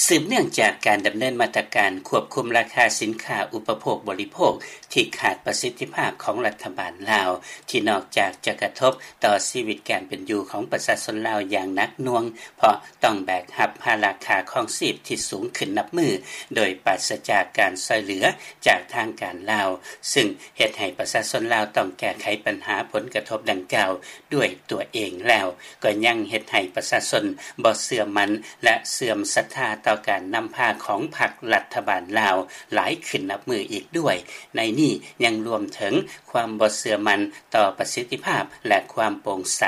ສືບເນື່ອງຈາກການດຳເນີນມາດຕະການຄວບຄຸມລາຄາສິນຄ້າອຸປະໂພກບໍລິໂພກ ທີ່ຂາດປະສິດທິພາບຂອງລັດຖະບານລາວ ທີ່ນອກຈາກຈະກະທົບຕໍ່ຊີວິດການເປັນຢູ່ຂອງປະຊາຊົນລາວຢ່າງໜັກໜ່ວງ ເພາະຕ້ອງແບກຮັບພາລະຄ່າຄອງຊີບທີ່ສູງຂຶ້ນນັບມື້ ໂດຍປາສຈາກການຊ່ອຍເຫຼືອຈາກທາງການລາວ ຊຶ່ງເຮັດໃຫ້ປະຊາຊົນລາວຕ້ອງແກ້ໄຂບັນຫາຜົນກະທົບດັ່ງກ່າວດ້ວຍຕົວເອງແລ້ວ ກໍຍັງເຮັດໃຫ້ປະຊາຊົນບໍ່ເຊື່ອໝັ້ນ ແລະ ເສື່ອມສັດທາຕໍ່ການນຳພາຂອງພັກລັດຖະບານລາວຫຼາຍຂຶ້ນນັບມື້ອີກດ້ວຍ. ໃນນີ້ຍັງລວມເຖິງຄວາມບໍ່ເຊື່ອໝັ້ນຕໍ່ປະສິດທິພາບ ແລະ ຄວາມໂປ່ງໃສ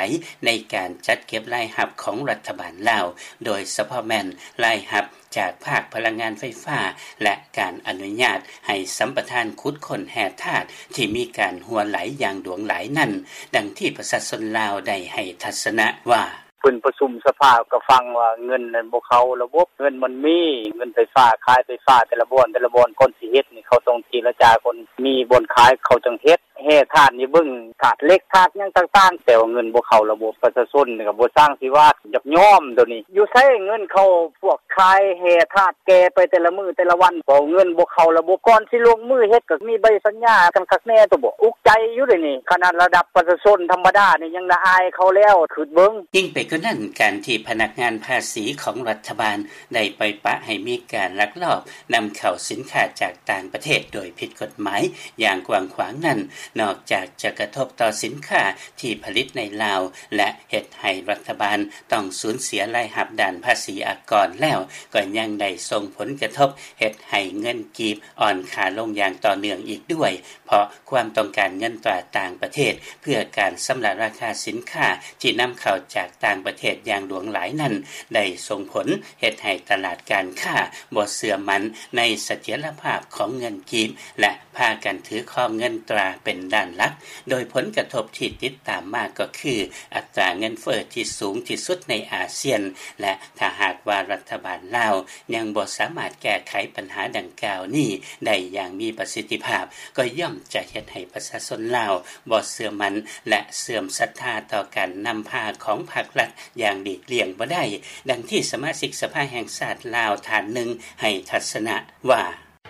ໃນການຈັດເກັບລາຍຮັບຂອງລັດຖະບານລາວ, ໂດຍສະເພາະແມ່ນລາຍຮັບຈາກພາກພະລັງງານໄຟຟ້າ ແລະ ການອະນຸຍາດໃຫ້ສຳປະທານຂຸດຄົ້ນແຮ່ທາດທີ່ມີການຮົ່ວໄຫຼຢ່າງຫຼວງຫຼາຍນັ້ນ, ດັ່ງທີ່ປະຊາຊົນລາວໄດ້ໃຫ້ທັດສະນະວ່າ: ເພິ່ນປະຊຸມສະພາກໍຟັງວ່າເງິນນັ້ນບໍ່ເຂົ້າລະບົບ, ເງິນມັນມີ, ເງິນໄຟຟ້າ, ຂາຍໄຟຟ້າແຕ່ລະບ່ອນ, ແຕ່ລະບ່ອນ ກ່ອນຊິເຮັດນີ້ ເຂົາຕ້ອງເຈລະຈາກ່ອນ, ມີບ່ອນຂາຍເຂົາຈັ່ງເຮັດ, ແຮ່ທາດນີ້ເບິ່ງທາດເຫຼັກ, ທາດຫຍັງຕ່າງໆ, ແຕ່ວ່າເງິນບໍ່ເຂົ້າລະບົບ, ປະຊາຊົນກໍບໍ່ຊ່າງຊິວ່າ, ຢາກຍອມໂຕນີ້. ຢູ່ໃສເງິນເຂົາ? ພວກຂາຍແຮ່ທາດແກ່ໄປແຕ່ລະມື້ແຕ່ລະວັນ, ເພາະເງິນບໍ່ເຂົ້າລະບົບ, ກ່ອນຊິລົງມືເຮັດກໍມີໃບສັນຍາກັນຄັກແນ່ຕົວະ. ອຸກໃຈຢູ່ເດນີ້, ຂະໜາດລະດັບປະຊາຊົນທຳມະດານີ້ຍັງລະອາຍເຂົາແລ້ວ, ຄິດເບິ່ງ. ຍິ່ງໄປກວ່ານັ້ນ, ການທີ່ພະນັກງານພາສີຂອງລັດຖະບານໄດ້ໄປປະໃຫ້ມີການລັກລອບນຳເຂົ້າສິນຄ້າຈາກຕ່າງປະເທດໂດຍຜິດກົດໝາຍຢ່າງກວ້າງຂວາງນັ້ນ, ນອກຈາກຈະກະທົບຕໍ່ສິນຄ້າທີ່ຜະລິດໃນລາວ ແລະ ເຮັດໃຫ້ລັດຖະບານຕ້ອງສູນເສຍລາຍຮັບດ້ານພາສີອາກອນແລ້ວ, ກໍຍັງໄດ້ສົ່ງຜົນກະທົບເຮັດໃຫ້ເງິນກີບອ່ອນຄ່າລົງຢ່າງຕໍ່ເນື່ອງອີກດ້ວຍ, ເພາະຄວາມຕ້ອງການເງິນຕາຕ່າງປະເທດເພື່ອການຊຳລະລາຄາສິນຄ້າທີ່ນຳເຂົ້າຈາກຕ່າງປະເທດຢ່າງຫຼວງຫຼາຍນັ້ນ ໄດ້ສົ່ງຜົນເຮັດໃຫ້ຕະຫຼາດການຄ້າບໍ່ເຊື່ອໝັ້ນໃນສະຖຽນລະພາບຂອງເງິນກີບ ແລະ ພາກັນຖືຄອງເງິນຕາເປັນດ້ານຫຼັກ, ໂດຍຜົນກະທົບທີ່ຕິດຕາມມາກໍຄື ອັດຕາເງິນເຟີ້ທີ່ສູງທີ່ສຸດໃນອາຊຽນ ແລະ ຖ້າຫາກວ່າລັດຖະບານລາວຍັງບໍ່ສາມາດແກ້ໄຂບັນຫາດັ່ງກ່າວນີ້ໄດ້ຢ່າງມີປະສິດທິພາບ, ກໍຍ່ອມຈະເຮັດໃຫ້ປະຊາຊົນລາວບໍ່ເຊື່ອໝັ້ນ ແລະ ເສື່ອມສັດທາຕໍ່ການນຳພາຂອງພັກລັດຢ່າງຫຼີກລ່ຽງບໍ່ໄດ້, ດັ່ງທີ່ສະມາຊິກສະພາແຫ່ງຊາດລາວທ່ານໜຶ່ງໃຫ້ທັດສະນະວ່າ: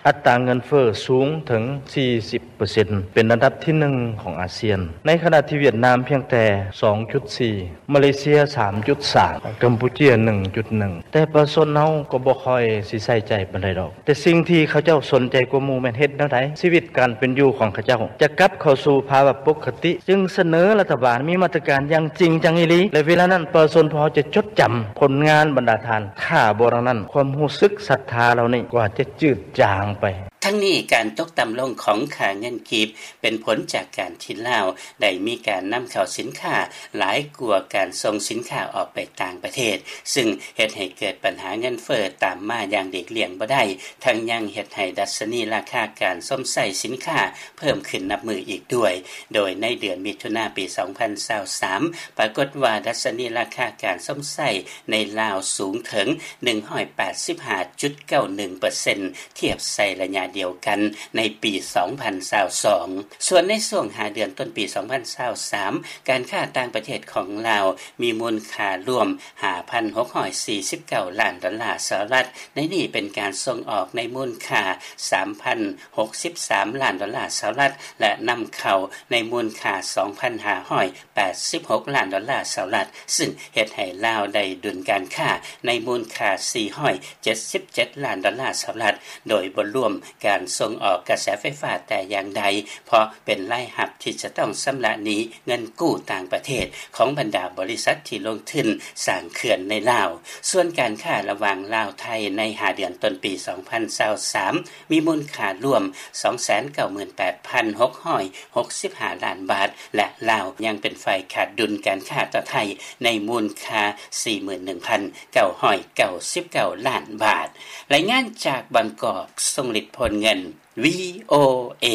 ອັດຕາເງິນເຟີ້ສູງເຖິງສີ່ສິບເປີເຊັນ ເປັນອັນດັບທີໜຶ່ງຂອງອາຊຽນ, ໃນຂະນະທີ່ຫວຽດນາມພຽງແຕ່ສອງຈຸດສີ່, ມາເລເຊຍສາມຈຸດສາມ, ກຳປູເຈຍໜຶ່ງຈຸດໜຶ່ງ, ແຕ່ປະຊາຊົນເຮົາກໍບໍ່ຄ່ອຍຊິໃສ່ໃຈປານໃດດອກ. ແຕ່ສິ່ງທີ່ເຂົາເຈົ້າສົນໃຈກວ່າໝູ່ແມ່ນເຮັດແນວໃດ ຊີວິດການເປັນຢູ່ຂອງເຂົາເຈົ້າຈະກັບເຂົ້າສູ່ພາວະປົກກະຕິ, ຈຶ່ງສະເໜີລັດຖະບານມີມາດຕະການຢ່າງຈິງຈັງອີ່ຫຼີ, ແລະ ເວລານັ້ນປະຊາຊົນພວກເຮົາຈະຈົດຈຳຜົນງານບັນດາທ່ານ, ຖ້າບໍ່ດັ່ງນັ້ນ ຄວາມຮູ້ສຶກສັດທາເຫຼົ່ານີ້ກໍອາດຈະຈືດຈາງໄປ. ທັງນີ້ ການຕົກຕ່ຳລົງຂອງຄ່າເງິນກີບ ເປັນຜົນຈາກການທີ່ລາວໄດ້ມີການນຳເຂົ້າສິນຄ້າຫຼາຍກວ່າການສົ່ງສິນຄ້າອອກໄປຕ່າງປະເທດ, ຊຶ່ງເຮັດໃຫ້ເກີດບັນຫາເງິນເຟີ້ຕາມມາຢ່າງຫຼີກລ່ຽງບໍ່ໄດ້, ທັງຍັງເຮັດໃຫ້ດັດຊະນີລາຄາການຊົມໃຊ້ສິນຄ້າເພີ່ມຂຶ້ນນັບມື້ອີກດ້ວຍ, ໂດຍໃນເດືອນມິຖຸນາປີສອງພັນຊາວສາມ ປາກົດວ່າດັດຊະນີລາຄາການຊົມໃຊ້ໃນລາວສູງເຖິງໜຶ່ງຮ້ອຍແປດສິບຫ້າຈຸດເກົ້າໜຶ່ງເປີເຊັນ ທຽບໃສ່ໄລຍະດຽວກັນໃນປີສອງພັນຊາວສອງ. ສ່ວນໃນຊ່ວງຫ້າເດືອນຕົ້ນປີສອງພັນຊາວສາມ ການຄ້າຕ່າງປະເທດຂອງລາວມີມູນຄ່າລວມຫ້າພັນຫົກຮ້ອຍສີ່ສິບເກົ້າລ້ານດອນລາສະຫະລັດ, ໃນນີ້ເປັນການສົ່ງອອກໃນມູນຄ່າສາມພັນຫົກສິບສາມລ້ານດອນລາສະຫະລັດ ແລະ ນຳເຂົ້າໃນມູນຄ່າສອງພັນຫ້າຮ້ອຍແປດສິບຫົກລ້ານດອນລາສະຫະລັດ, ຊຶ່ງເຮັດໃຫ້ລາວໄດ້ດຸນການຄ້າໃນມູນຄ່າສີ່ຮ້ອຍເຈັດສິບເຈັດລ້ານດອນລາສະຫະລັດ, ໂດຍບໍ່ລວມການສົ່ງອອກກະແສໄຟຟ້າແຕ່ຢ່າງໃດ, ເພາະເປັນລາຍຮັບທີ່ຈະຕ້ອງຊຳລະໜີ້ເງິນກູ້ຕ່າງປະເທດຂອງບັນດາບໍລິສັດທີ່ລົງທຶນສ້າງເຂື່ອນໃນລາວ. ສ່ວນການຄ້າລະຫວ່າງລາວ-ໄທໃນຫ້າເດືອນຕົ້ນປີສອງພັນຊາວສາມ ມີມູນຄ່າລວມສອງແສນເກົ້າໝື່ນແປດພັນຫົກຮ້ອຍຫົກສິບຫ້າລ້ານບາດ ແລະ ລາວຍັງເປັນຝ່າຍຂາດດຸນການຄ້າຕໍ່ໄທໃນມູນຄ່າສີ່ໝື່ນໜຶ່ງພັນເກົ້າຮ້ອຍເກົ້າສິບເກົ້າລ້ານບາດ. ລາຍງານຈາກບາງກອກ, ຊົງລິດ ໂພນເງິນ, ວີໂອເອ.